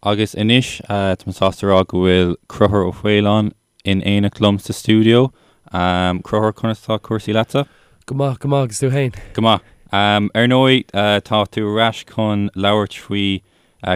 Agus anois tá mé sásta a rá go bhfuil Conchúr Ó Faoláin in éineacht liom sa stiúideo. Conchúr, conas tá cúrsaí leatsa? Go maith, go maith, agus tú fhéin? Go maith. Ar ndóigh, tá tú ar ais chun labhairt faoi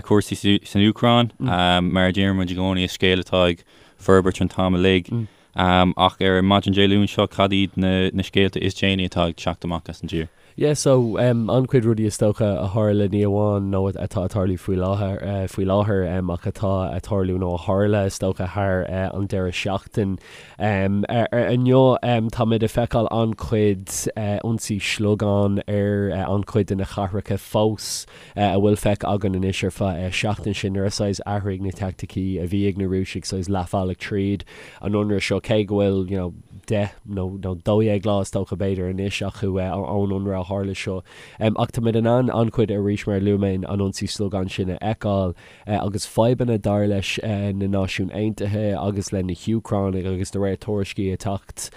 chúrsaí san Úcráin. Mar a deir muid i gcónaí, is scéal atá ag forbairt an t-am uilig. Ach ar maidin Dé Luain seo, cad iad na scéalta is déanaí atá ag teacht amach as an dtír? Yeah so an-chuid rudaí is dócha a tharla ní amháin nó atá ag tarlú faoi láthair faoi láthair ach atá ag tarlú nó a tharla is dócha thar an deireadh seachtain. Inniu táimid ag feiceáil an-chuid ionsaí sliogán ar an-chuid de na cathracha fós a bhfuil feicthe againn anois ar feadh seachtain sin nuair a saghas athraigh na teaicticí a bhí ag na Rúisigh saghas leathbhealach tríd an ionradh seo cé go bhfuil you know 10 nó 12 lá is dócha b'fhéidir anois acu ón ionradh a tharla seo. Ach táimid in ann an-chuid arís mar a luaigh mé an ionsaí sliogáin sin a fheiceáil agus fadhbanna dar leis na Náisiúin Aontaithe agus le na hÚcránaigh agus de réir tuairiscí ag teacht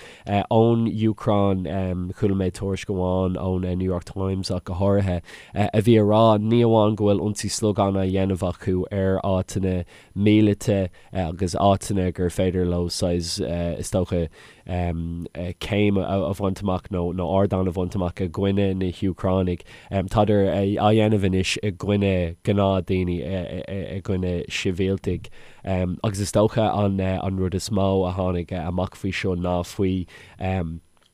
ón Úcráin, chuala mé tuairisc amháin ón New York Times ach go háirithe, a bhí ag rá ní amháin go bhfuil ionsaí sliogáin á dhéanamh acu ar áiteanna míleata agus áiteanna gur féidir leo saghas, is dócha, céim a bhaint amach nó ardán a bhaint amach i gcoinne na hÚcránaigh. Tádar á dhéanamh anois i gcoinne gnáthdhaoine, i gcoinne sibhialtaigh. Agus is dócha an rud is mó a tháinig amach faoi seo ná faoi,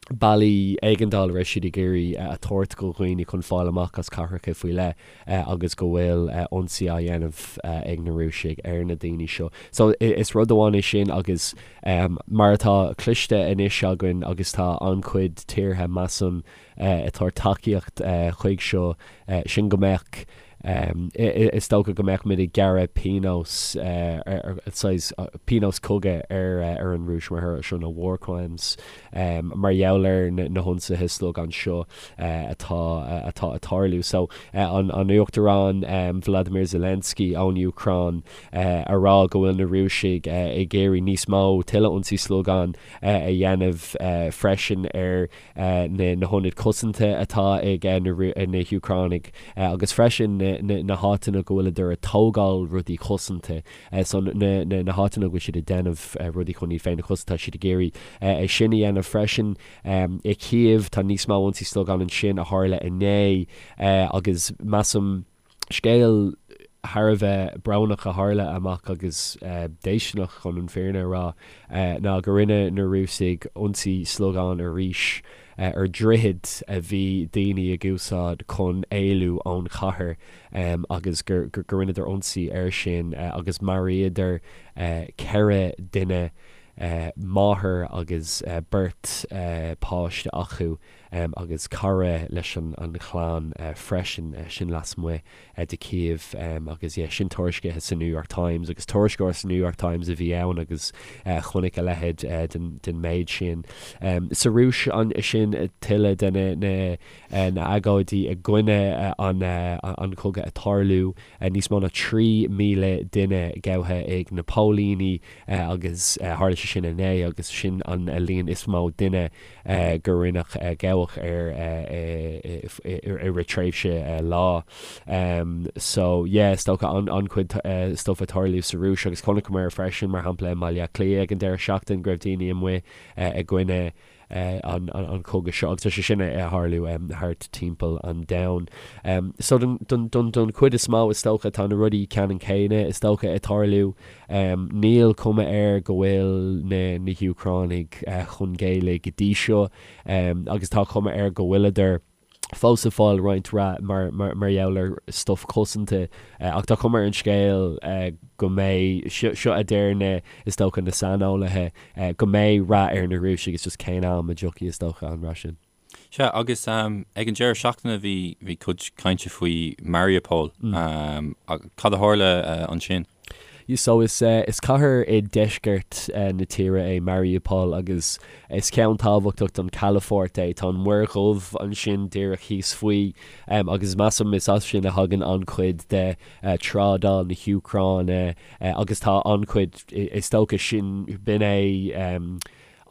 bealaí éigeandála a raibh siad ag iarraidh a thabhairt do dhaoine chun fáil amach as cathracha faoi leith agus go bhfuil ionsaí á dhéanamh ag na Rúisigh ar na daoine seo. So is rud amháin é sin agus mar atá cloiste anois againn agus tá an-chuid tíortha measaim ag tabhairt tacaíocht chuig seo, sin go mbeadh Is dócha go mbeadh muid ag gearradh pionós, saghas pionós cogaidh ar an Rúis mar thoradh seo, nó war crimes, mar gheall ar na hionsaithe sliogáin seo atá atá ag tarlú. So, an Uachtarán Vladimir Zelensky ón Úcráin a rá go bhfuil na Rúisigh ag iarraidh níos mó, tuilleadh ionsaí sliogáin a dhéanamh freisin ar na hionaid cosanta atá ag na hÚcránaigh agus freisin na háiteanna go bhfuileadar ag tógáil rudaí cosanta, so na háiteanna go bhfuil siad ag déanamh rudaí chun iad féin a chosaint, tá siad ag iarraidh é sin a dhéanamh freisin. I Kyiv tá níos mó ionsaí sliogáin ansin a tharla inné agus measaim, Scéal thar a bheith brónach a tharla amach agus déistineach chun an fírinne a rá ná go rinne na Rúisigh ionsaí sliogáin arís ar dhroichead a bhí daoine ag úsáid chun éalú ón chathair agus gur rinneadar ionsaí air sin agus mharaíodar 4 duine, máthair agus beirt páiste acu. agus cara leis an chlann freisin, sin lasmuigh de Kyiv agus yeah sin tuairiscithe sa New York Times agus tuairisceoir sa New York Times a bhí ann agus chonaic a leithéid den méid sin. Sa Rúis ansin tuilleadh de na na agóidí i gcoinne an chogaidh ag tarlú, níos mó ná 3,000 duine gabhtha ag na póilíní agus tharla sé sin inné agus sin an líon is mó duine gur rinneadh gabhadh ar i rith tréimhse lá. So yeah, is dócha an-chuid stuff ag tarlú sa Rúis agus chonaiceamar freisin, mar shampla i mBaile Átha Cliath ag an deireadh seachtain go raibh daoine amuigh i gcoinne an chogaidh seo agus tá sé sin ag tarlú thart timpeall an domhain. So don don chuid is mó is dócha tá na rudaí ceannann céanna is dócha ag tarlú. Níl cuma air go bhfuil na hÚcránaigh chun géilleadh go dtí seo agus tá cuma air go bhfuileadar fós ag fáil roinnt rath mar gheall ar stuif cosanta ach tá cuma ar an scéal go mbeidh, seo a deir na, is dócha, na saineolaithe, go mbeidh rath ar na Rúisigh, it's just cén am a dtiocfaidh is dócha an rath sin. Sea, agus ag an deireadh seachtaine bhí bhí cuid cainte faoi Mariupol. Cad a tharla ansin? So is is cathair i deisceart na tíre é Mariupol agus is ceann tábhachtach don calafort é. Tá an Mhuir Dhubh ansin díreach thíos faoi agus measaim is as sin a thagann an-chuid de trádáil na hÚcráine agus tá an-chuid, is dócha sin, b'in é.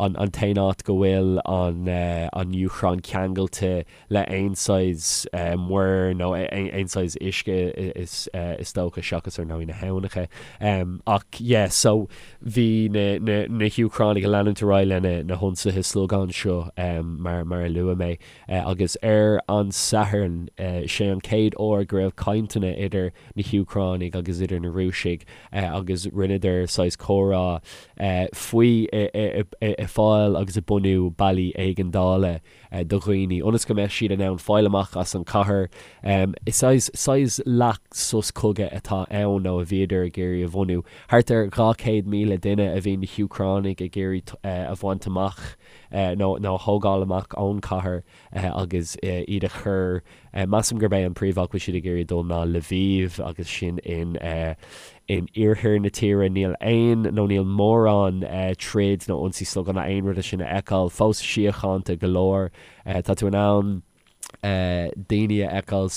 an an t-aon áit go bhfuil an an Úcráin ceangailte le aon saghas muir nó aon saghas uisce is is dócha seachas ar ndóigh na habhnacha. Ach yeah so bhí na na na hÚcránaigh ag leanúint ar aghaidh lena na hionsaithe slogán seo mar mar a luaigh mé. Agus ar an Satharn, sé an chéad uair go raibh cainteanna idir na hÚcránaigh agus idir na Rúisigh agus rinneadar saghas comhrá faoi fáil agus ag bunú bealaí éigeandála do dhaoine ionas go mbeadh siad in ann fáil amach as an chathair. Is saghas saghas leath sos cogaidh atá ann nó a bhíodar ag iarraidh a bhunú. Thart ar 200,000 duine a bhí na hÚcránaigh ag iarraidh a bhaint amach. nó a thógáil amach ón chathair agus iad a chur, measaim gurb é an príomháit go bhfuil siad ag iarraidh dul ná Lviv agus sin in in iarthar na tíre. Níl aon nó níl mórán troid nó ionsaí slogán ná aon rud de sin a fheiceáil, fós síochánta go leor. Tá tú in ann. daoine a fheiceáil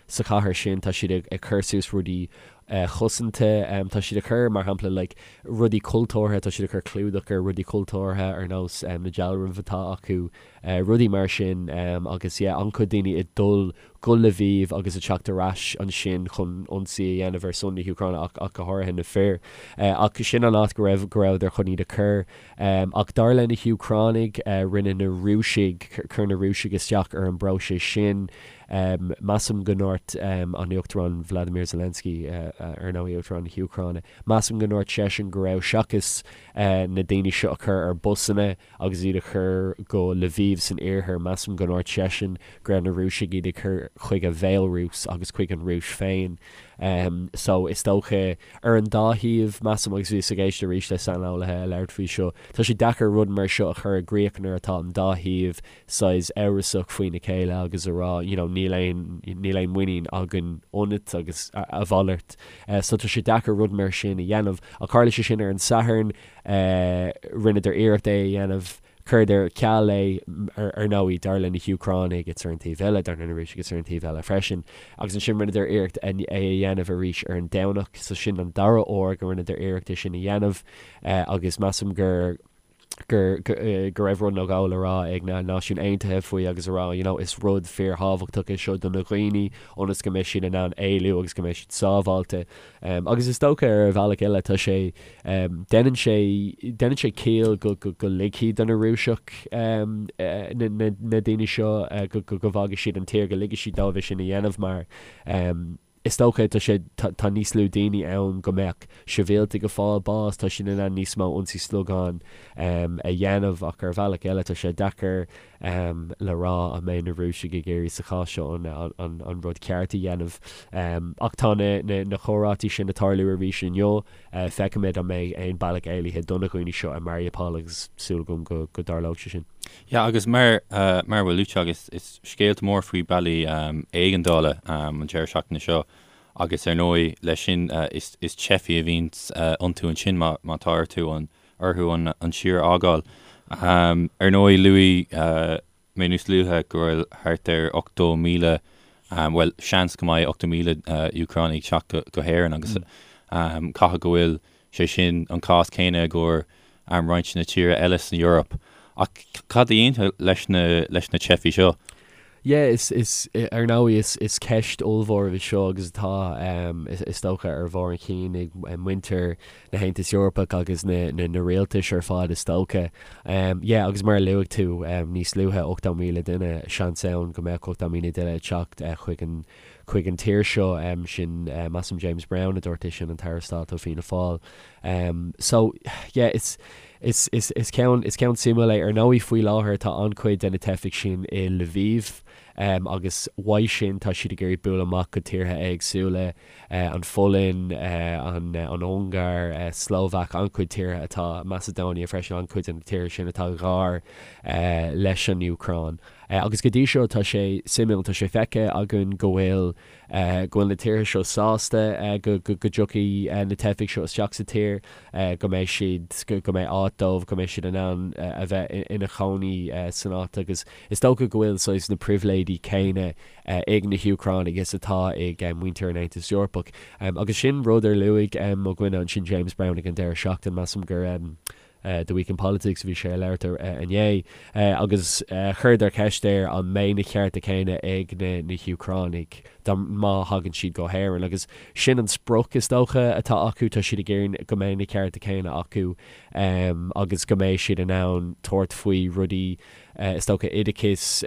sa chathair sin, tá siad ag cur suas rudaí cosanta, tá siad ag cur, mar shampla, like, rudaí cultúrtha, tá siad ag cur clúdach ar rudaí cultúrtha ar nós na dealraimh atá acu, rudaí mar sin agus yeah, an-chuid daoine ag dul go Lviv agus ag teacht ar ais ansin chun ionsaí a dhéanamh ar son na hÚcráine ach ach go háirithe na fir. Ach sin an áit go raibh go rabhadar chun iad a chur. Ach dar le na hÚcránaigh, rinne na Rúisigh, chuir na Rúisigh isteach ar an bpróiseas sin. Measaim go ndúirt an Uachtarán Vladimir Zelensky, ar ndóigh Uachtarán na hÚcráine, measaim go ndúirt seisean go raibh, seachas na daoine seo a chur ar busanna agus iad a chur go Lviv san iarthar, measaim go ndúirt seisean go raibh na Rúisigh iad ag cur chuig an Bhéalarúis agus chuig an Rúis féin. So is dócha, ar an dá thaobh, measaim, agus bhíos ag éisteacht arís le saineolaithe ag labhairt faoi seo, tá sé deacair rud mar seo a chur i gcrích nuair atá an dá thaobh saghas amhrasach faoina chéile agus a rá you know níl aon, níl aon muinín againn ionat agus a mhalairt. So tá sé deacair rud mar sin a dhéanamh. Ach tharla sé sin ar an Satharn, rinneadar iarracht é a dhéanamh, Chuireadar ar ceal é, ar ndóigh, dar le na hÚcránaigh, it's ar an taobh eile, dar le na Rúisigh, it's ar an taobh eile freisin. Agus ansin rinneadar iarracht é a dhéanamh arís ar an Domhnach, so sin an dara huair go rinneadar iarracht é sin a dhéanamh agus measaim gur gur go raibh rud nó dhó le rá ag na Náisiúin Aontaithe faoi agus a rá, you know, is rud fíorthábhachtach é seo do na dhaoine ionas go mbeidh siad in ann éalú agus go mbeidh siad sábháilte. Agus is dócha ar bhealach eile tá sé, déanann sé, déanann sé ciall go, go, go ligfidh do na Rúiseach na, na, na daoine seo go, go, go bhfágfaidh siad an tír, go ligfidh siad dóibh é sin a dhéanamh mar is dócha tá sé, tá, tá níos lú daoine ann go mbeadh sibhialtaigh ag fáil bás, tá siad in ann níos mó ionsaí slogán a dhéanamh ach ar bhealach eile tá sé deacair le rá an mbeidh na Rúisigh ag iarraidh sa chás seo an rud ceart a dhéanamh. Ach tá na comhráití sin ag tarlú arís inniu. Feicfimid an mbeidh aon bealach éalaithe do na dhaoine seo i Mariupol agus súil agam go dtarlóidh sé sin. Yeah, agus mar mar a bhfuil luaite agat, is scéalta mór faoi bealaí éigeandála an deireadh seachtaine seo agus ar ndóigh leis sin is teifigh a bhíonns iontu ansin má tá orthu an orthu an tír a fhágáil. Ar ndóigh, luaigh mé níos luaithe go bhfuil thart ar 80,000, bhuel, seans go mbeidh 80,000 Úcránaigh ag teacht go hÉirinn agus caithfidh go bhfuil sé sin an cás céanna i gcomhair roinnt de na tíortha eile san Eoraip. Ach cad a dhéanfar leis na teifigh seo? Yeah, is, is, ar ndóigh, is, is ceist ollmhór í seo agus atá, is dócha, ar bharr an chinn ag muintir na hAontas Eorpach agus na, na, na rialtais ar fad, is dócha. Yeah, agus mar a luaigh tú níos luaithe, 80,000 duine, seans ann go mbeadh 80,000 duine ag teacht chuig an, chuig an tír seo, sin, measaim James Browne a dúirt é sin, an tAire Stáit ó Fianna Fáil. So, yeah, is, Is, is, is ceann, is ceann suimiúil é. Ar ndóigh, faoi láthair tá an-chuid de na teifigh sin i Lviv agus uaidh sin tá siad ag iarraidh bualadh amach go tíortha éagsúla, an Pholainn, an, an Ungáir, Slóvaic, an-chuid tíortha atá, Macedonia freisin, an-chuid de na tíortha sin atá gar leis an Úcráin. Agus go dtí seo tá sé suimiúil, tá sé feicthe againn go bhfuil, go bhfuil na tíortha seo sásta go dtiocfaidh na teifigh seo isteach sa tír, go mbeidh siad, go mbeidh áit dóibh, go mbeidh siad in ann a bheith ina chónaí san áit agus is dócha go bhfuil saghas na pribhléidí céanna ag na hÚcránaigh is atá ag muintir an Aontais Eorpaigh. Agus sin rud ar luaigh mo dhuine ansin James Browne ag an deireadh seachtaine, measaim gur. The Week in Politics a bhí sé ag labhairt inné agus chuireadar ceist air an mbeidh na cearta céanna ag na hÚcránaigh dá má thagann siad go hÉirinn agus sin an sprioc is dócha atá acu, tá siad ag iarraidh go mbeidh na cearta céanna acu agus go mbeidh siad in ann tabhairt faoi rudaí is dócha oideachas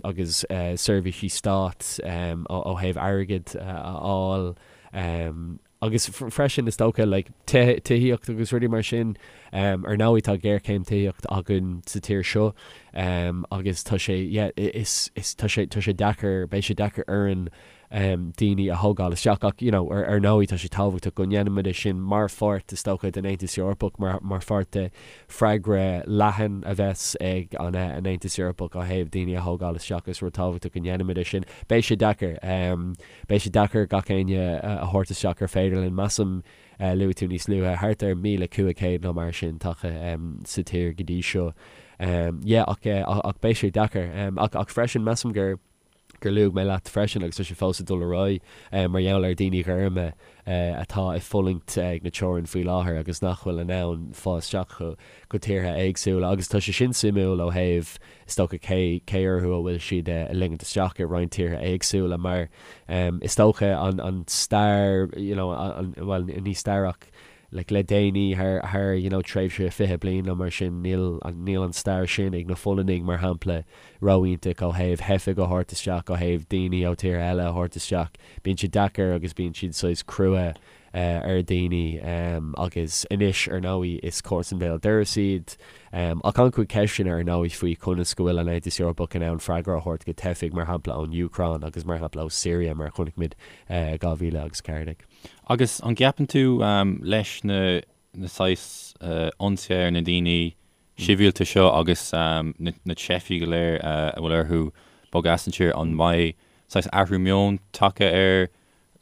agus seirbhísí stáit ó thaobh airgead a fháil. Agus freisin, is dócha, like, tithíocht agus rudaí mar sin. Ar ndóigh, tá géarchéim tithíocht againn sa tír seo agus tá sé, yeah, is, is, tá sé, tá sé deacair, beidh sé deacair orainn daoine a thógáil isteach ach, you know, ar, ar ndóigh, tá sé tábhachtach go ndéanfaimid é sin mar pháirt, is dócha, den Aontas Eorpach, mar, mar pháirt de freagra leathan a bheas ag an, an Aontas Eorpach ó thaobh daoine a thógáil isteach. Is rud tábhachtach go ndéanfaimid é sin. Beidh sé deacair. Beidh sé deacair gach éinne a thabhairt isteach ar féidir linn. Measaim, luaigh tú níos luaithe, thart ar 1,500 nó mar sin tagtha sa tír go dtí seo. Yeah, ach, ach beidh sé deacair. Ach, ach freisin, measaim gur, gur luaigh mé leat freisin, agus tá sé fós ag dul ar aghaidh, mar gheall ar daoine gorma atá ag fulaingt ag na teorann faoi láthair agus nach bhfuil in ann fáil isteach go tíortha éagsúla. Agus tá sé sin suimiúil ó thaobh Is dócha cé cé orthu a bhfuil siad a ligint isteach i roinnt tíortha éagsúla mar is dócha an an stair you know an bhuel ní stair ach like le déanaí thar thar you know tréimhse 20 bliain nó mar sin níl an níl an stair sin ag na Pholainnaigh mar shampla ró-iontach ó thaobh theifigh a thabhairt isteach ó thaobh daoine ó tíortha eile a thabhairt isteach bíonn siad deacair agus bíonn siad saghas crua ar dhaoine agus anois, ar ndóigh, is comharsan béal dorais iad. Ach an-chuid ceisteanna, ar ndóigh, faoi conas go bhfuil an Aontas Eorpach in ann freagra a thabhairt go teifigh, mar shampla ón Úcráin agus mar shampla ó Syria, mar a chonaic muid i 2014. Agus an gceapann tú leis na saghas ionsaithe ar na daoine sibhialta seo agus na teifigh go léir a bhfuil orthu bogadh as an tír, an mbeidh saghas athrú meoin tagtha ar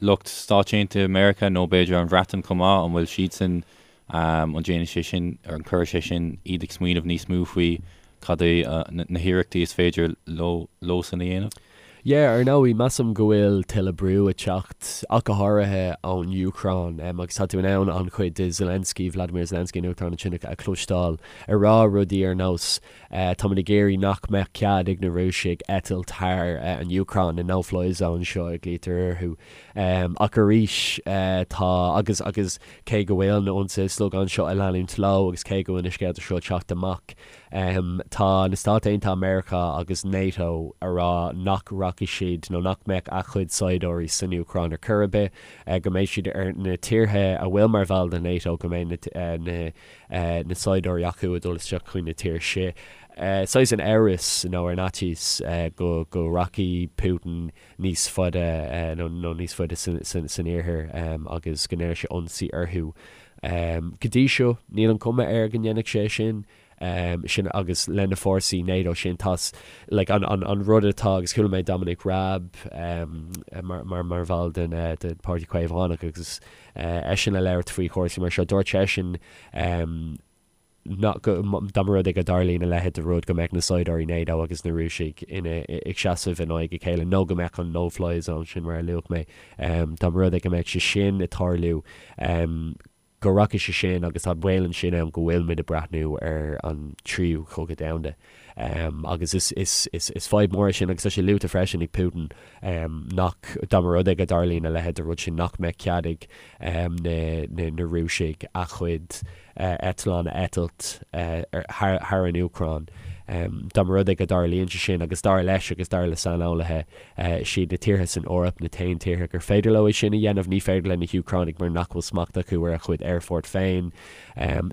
lucht Stáit Aontaithe Meiriceá nó b'fhéidir an Bhreatain chomh maith, an bhfuil siadsan, an déanfaidh sé sin, an gcuirfidh sé sin iad ag smaoineamh níos mó faoi cad é na hiarrachtaí is féidir leo leosan a dhéanamh? Yeah, ar ndóigh, measaim go bhfuil tuilleadh brú ag teacht, ach go háirithe ón Úcráin, agus tá tú in ann an-chuid de Zelensky, Vladimir Zelensky, an Uachtarán ansin, a chloisteáil ag rá rudaí ar nós, Táimid ag iarraidh nach mbeadh cead ag na Rúisigh eitilt thar an Úcráin, na no-fly zones seo a ghlaoitear orthu. Ach arís, tá, agus agus cé go bhfuil na ionsaithe sliogán seo ag leanúint leo agus cé go bhfuil na scéalta seo ag teacht amach, tá na Stáit Aontaithe Meiriceá agus NATO ag rá nach rachaidh siad nó nach mbeadh a gcuid saighdiúirí san Úcráin ar chor ar bith, go mbeidh siad ar na tíortha a bhfuil mar bhall de NATO, go mbeidh na na saighdiúirí acu ag dul isteach chuig na tír sin. Saghas an amhras nó ar an fhaitíos go go rachaidh Putin níos faide nó nó níos faide san iarthar agus go ndéanfaidh sé ionsaí orthu. Go dtí seo níl an cuma air go ndéanfaidh sé sin. sin agus le na fórsaí NATO sin tá like an an an rud atá agus chuala mé Dominic Raab mar mar mar bhall den den Páirtí Caomhánach agus eisean ag labhairt faoi chúrsaí mar seo. Dúirt seisean nach go dá mba rud é go dtarlaíonn a leithéid de rud go mbeadh na saighdiúirí NATO agus na Rúisigh ina ag seasamh in aghaidh a chéile nó go mbeadh an no-fly zone sin mar a luaigh mé dá mba rud é go mbeadh sé sin ag tarlú go rachaidh sé sin agus tá baol ansin ann go bhfuil muid ag breathnú ar an tríú cogadh domhanda. Agus is, is, is, is fadhb mór é sin agus tá sé luaite freisin ag Putin nach, dá mba rud é go dtarlaíonn a leithéid de rud sin, nach mbeadh cead ag na, na, na Rúisigh a chuid eitleán a eitilt thar, thar an Úcráin. Dá mba rud é go dtarlaíonn sé sin agus dar leis agus dar le saineolaithe, Is iad na tíortha san Eoraip na t-aon tíortha gur féidir leo é sin a dhéanamh. Ní féidir le na hÚcránaigh mar nach bhfuil smacht acu ar a chuid aerfort féin.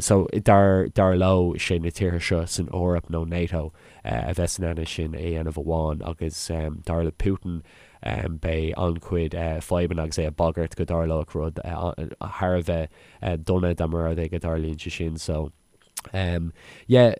So, dar dar leo, is é na tíortha seo san Eoraip nó NATO a bheas in ann é sin a dhéanamh amháin agus dar le Putin beidh an-chuid fadhbanna agus é ag bagairt go dtarlódh rud thar a bheith dona dá mba rud é go dtarlaíonn sé sin. So. Yeah,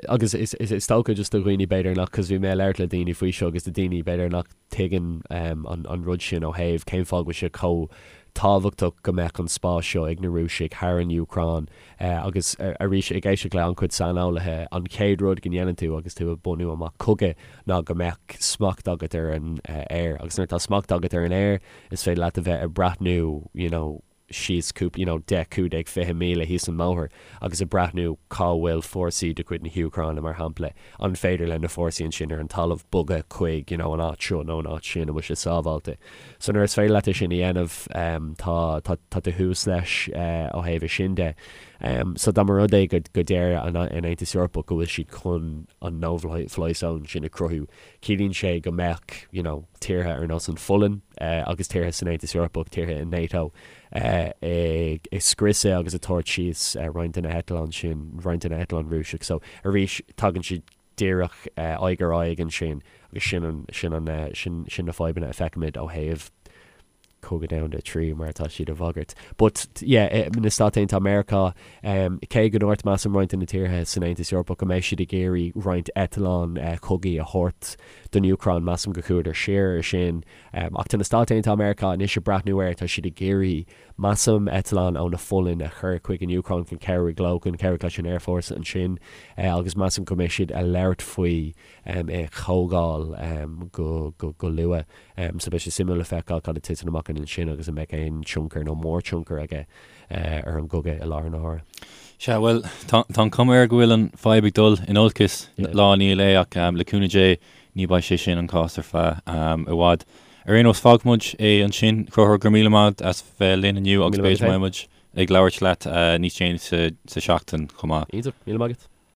agus is is dócha just do dhaoine b'fhéidir nach, cos bhí mé ag labhairt le daoine faoi seo agus do daoine b'fhéidir nach tuigeann an an rud sin ó thaobh cén fáth go bhfuil sé chomh tábhachtach go mbeadh an spás seo ag na Rúisigh thar an Úcráin agus arís ag éisteacht le an-chuid saineolaithe an chéad rud go ndéanann tú agus tú ag bunú amach cogadh ná go mbeadh smacht agat ar an aer agus nuair atá smacht agat ar an aer is féidir leat a bheith ag breathnú you know. síos cúpla, you know, 10, 15, 20 míle thíos an mbóthar agus ag breathnú cá bhfuil fórsaí de chuid na hÚcráine, mar shampla, an féidir le na fórsaí ansin ar an talamh bogadh chuig, you know, an áit seo nó an áit sin, an bhfuil sé sábháilte. So nuair is féidir leat é sin a dhéanamh, tá, tá, tá tú thuas leis ó thaobh é sin de. So dá mba rud é go, go deir an, an Aontas Eorpach go bhfuil siad chun an no-fly zone sin a chruthú, ciallaíonn sé go mbeadh, you know, tíortha ar nós an Pholainn agus tíortha san Aontas Eorpach, tíortha i NATO, ag scriosadh agus ag tabhairt síos roinnt de na heitleáin sin, roinnt de na heitleáin Rúiseach. So arís, tagann siad díreach aghaidh ar aghaidh ansin agus sin an, sin an, sin, sin na fadhbanna a feicimid ó thaobh Cogadh Domhanda 3 mar atá siad a bhagairt. But yeah, na Stáit Aontaithe Meiriceá, cé go ndúirt measaim roinnt de na tíortha san Aontas Eorpach go mbeidh siad ag iarraidh roinnt eitleán cogaidh a thabhairt don Úcráin, measaim go chuadar siar ar sin. Ach tá na Stáit Aontaithe Meiriceá anois ag breathnú air, tá siad ag iarraidh, measaim, eitleán ó na Pholainn a chur chuig an Úcráin chun cabhrú leo, chun cabhrú leis an aerfhórsa ansin agus measaim go mbeidh siad ag labhairt faoi é a thógáil go luath. So beidh sé suimiúil le feiceáil cad a titeann amach ansin agus an mbeidh aon tionchar nó mórthionchar aige ar an gcogadh i láthair na huaire. Sea, bhuel, tá an chuma air go bhfuil an fadhb ag dul in olcas lá i ndiaidh lae ach le cúnamh Dé ní beidh sé sin an cás ar feadh i bhfad. Ar aon nós, fágfaidh muid é ansin. Conchúr, go raibh míle maith agat as bheith linn inniu agus b'fhéidir go mbeidh muid ag labhairt leat níos déanaí sa seachtain chomh maith. Iontach, míle maith agat.